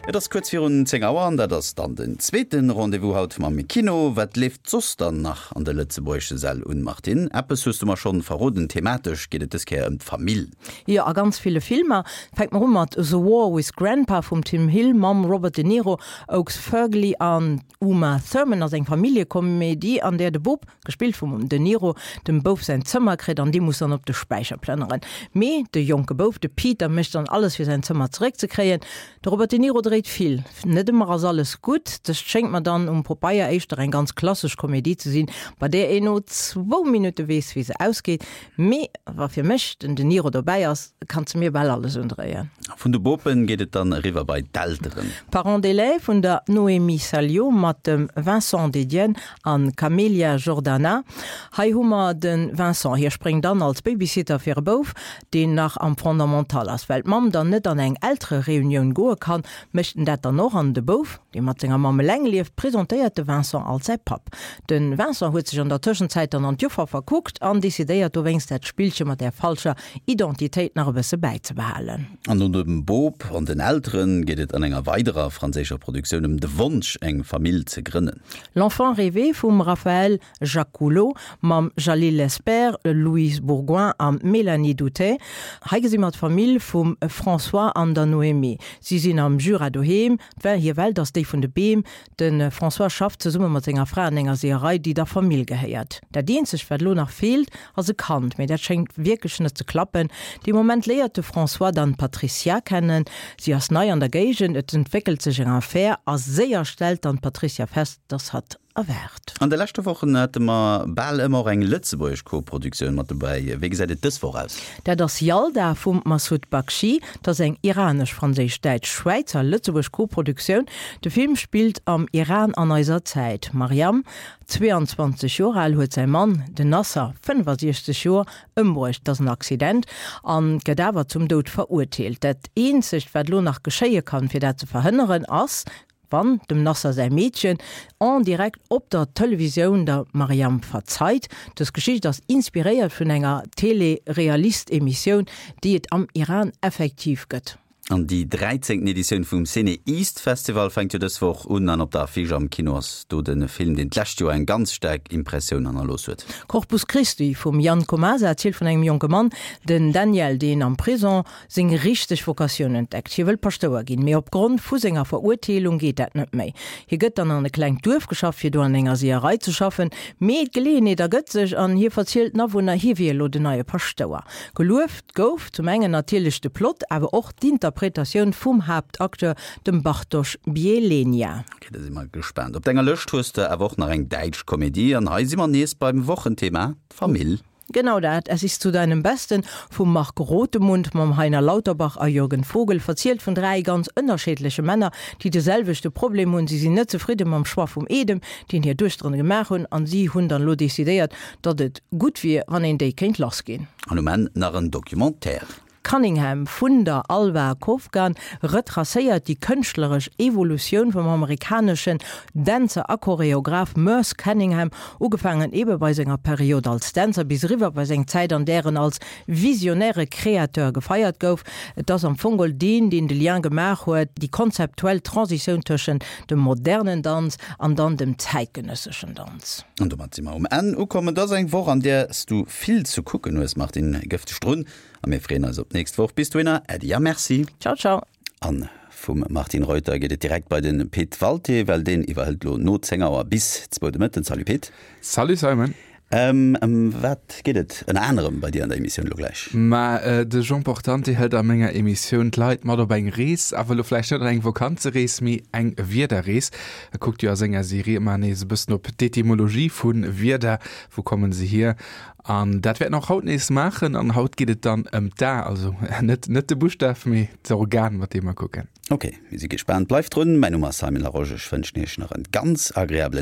Et ass kuerz virun 10 Auer an dat ass dann den zweete Rendez-vous haut mam Kino. Wat leeft soss dann nach an de lëtzebuergesche Säll un, Martine? Eppes hues du mer schonn verroden, thematesch geet et dës Kéier ëm d'Famill. Jo, a ganz ville Filmer. Fänke mer u mat The War with Grandpa vum Tim Hill mam Robert De Niro, Oakes Fergly an Uma Thurman ass eng Familljekomedie, an där de Bop, gespillt vum De Niro, dem Bouf säin Zëmmer kritt an dee muss dann op de Späicher plënneren. Mee de jonke Bouf, de Peter, mécht dann alles fir säin Zëmmer zeréckzekréien. De Robert De Niro dréit vill, net ëmmer ass alles gutt. Dëst schéngt mer dann um Popeier éischter eng ganz klassesch Komedie ze sinn, bei där een no zwou Minutte weess, wéi se ausgeet. Mee wa fir mech den De Niro dobäi ass, kanns de mir bal alles undréien. Vun de Bopen geet et dann eriwwer bei d'Elteren. Parents d'élèves vun der Noémie Saliot mat dem Vincent Dedienne an Camélia Jordana. Hei hu mer de Vincent, hie spréngt an als Babysitter fir e Bouf, deen nach am Fondamental ass. Well d'Mamm dann net an eng Elterereunioun goe kann, mécht en dat dann och an de Bouf, dee mat senger Mamm eleng lieft, presentéiert de Vincent als säi Papp. De Vincent huet sech an der Tëschenzäit dann an d'Joffer verkuckt an decidéiert dowéinst dat Spillche mat där falscher Identitéit nach e bësse bäizebehalen. An no dem Bop an den Eltere geet et an enger weiderer franséischer Produktioun ëm de Wonsch, eng Famill ze grënnen. L'enfant rêvé vum Raphaël Jacoulot mam Jalil Lespert, Louise Bourgoin a Mélanie Doutey. Hei gesi mer d'Famill vum François an der Noémie. Si sinn am Jura doheem. Hir Welt ass déi vun de Beem. De François schafft zesumme mat senger Fra an enger Seeërei, déi der Famill gehéiert. Dat eenzegt, wat elo nach feelt, ass e Kand, mee dat schéngt wierklech net ze klappen. Dee Moment léiert de François dann d'Patricia kennen. Si ass nei an der Géigend, et entwéckelt sech eng Affär a séier stellt dann d'Patricia fest, dass hatt erwaart. An de leschte Wochen hate mer bal ëmmer och eng lëtzebuergesch Koproduktioun mat dobäi. Wéi gesäit et dës Woch aus? Dat ass Yalda vum Massoud Bakhshi. Dat ass eng iranesch-franséisch-däitsch-schwäizer-lëtzebuergesch Koproduktioun. De Film spillt am Iran an eiser Zäit. D'Maryam, 22 Joer al, huet säi Mann, den Nasser, 65 Joer, ëmbruecht. Et ass en Accident an gëtt awer zum Doud verurteelt. Dat eenzegt, wat elo nach geschéie kann, fir dat ze verhënneren, ass, Wann dem Nasser säi Meedchen en direct op der Televisioun der Mariam verzeit. Dës Geschicht ass inspiréiert vun enger Télé-Realist-Emissioun, déi et am Iran effektiv gëtt. An déi dräizéngten Editioun vum CinEast Festival fänkt jo dës Woch un an op der Affiche am Kino ass do de Film, deen d'lescht Joer eng ganz staark Impressioun hannerlooss huet. Corpus Christi vum Jan Komasa erzielt vun engem jonke Mann, den Daniel, deen am Prison seng richteg Vocatioun entdeckt. Hie wëll Paschtouer ginn, mee opgrond vu senger Verurteelung geet dat net méi. Hie gëtt dann an e klengt Duerf geschafft, fir do an enger Seeërei ze schaffen, mee d'Geleeënheet ergëtt sech an hie verzielt den Awunner, hie wier elo den neie Paschtouer. Gelueft gouf zum engen natierlech de Plot, awer och d'Interpretatioun vum Haaptacteur, dem Bartosz Bielenia. Ok, da si mer gespaant. Op denger Lëscht hues de awer och nach eng däitsch Komedie an hei si mer nees beim Wochenthema, d'Famill. Genau dat, Es ist zu deinem Besten vum Marc Rothemund mam Heiner Lauterbach a Jürgen Vogel verzielt vun 3 ganz ënnerscheedleche Männer, déi de selwechte Problem hunn, si sinn net zefridde mam Choix vum Eedem, deen hir Duechteren gemaach hunn, an si hunn dann elo decidéiert, datt et gutt wier, wann een déi kéint lass ginn. An um Enn nach en Documentaire. Cunningham vun der Alva Kovgan retracéiert déi kënschtleresch Evolutioun vum amerikaneschen Dänzer a Choreograph Merce Cunningham, ugefaangen ebe bei senger Period als Dänzer bis eriwwer bei seng Zäit, an där en als visionäre Créateur gefeiert gouf. Et ass am Fong geholl deen, deen de Lien gemaach huet, déi konzeptuell Transitioun tëschent dem modernen Danz an dann dem zäitgenësseschen Danz. An domat si mer um Enn ukomm. Et ass eng Woch, an där s du vill ze kucken hues, Martine. Gëff dech drun A mir freeën eis op d'nächst Woch. Bis dohinner, Äddi a Merci. Ciao, ciao. An vum Martine Reuter geet et direkt bei de Pit Walté, well deen iwwerhëlt lo no 10 Auer bis zwou de Mëtten. Salut Pit. Salut Simon. Ëm wat geet et ënner anerem bei dir an der Emissioun lo gläich? Ma de Jean Portante hëlt a menger Emissioun d'Leit mat op eng Rees, awer lo vläicht net an eng Vakanzerees, mee eng Wierderrees. E kuckt jo a senger Serie ëmmer nees e bëssen op d'Etymologie vu Wierder, wou kommen se hier? An dat wäert en och haut nees maachen. An haut geet et dann ëm d'A, also net net de Buschtaf, mee d'Organ, mat deem mer kucken. Ok, mir si gespaant. Bleift drun. Mäin Numm ass Simon Larosche. Ech wënschen Iech nach en ganz agreabelen.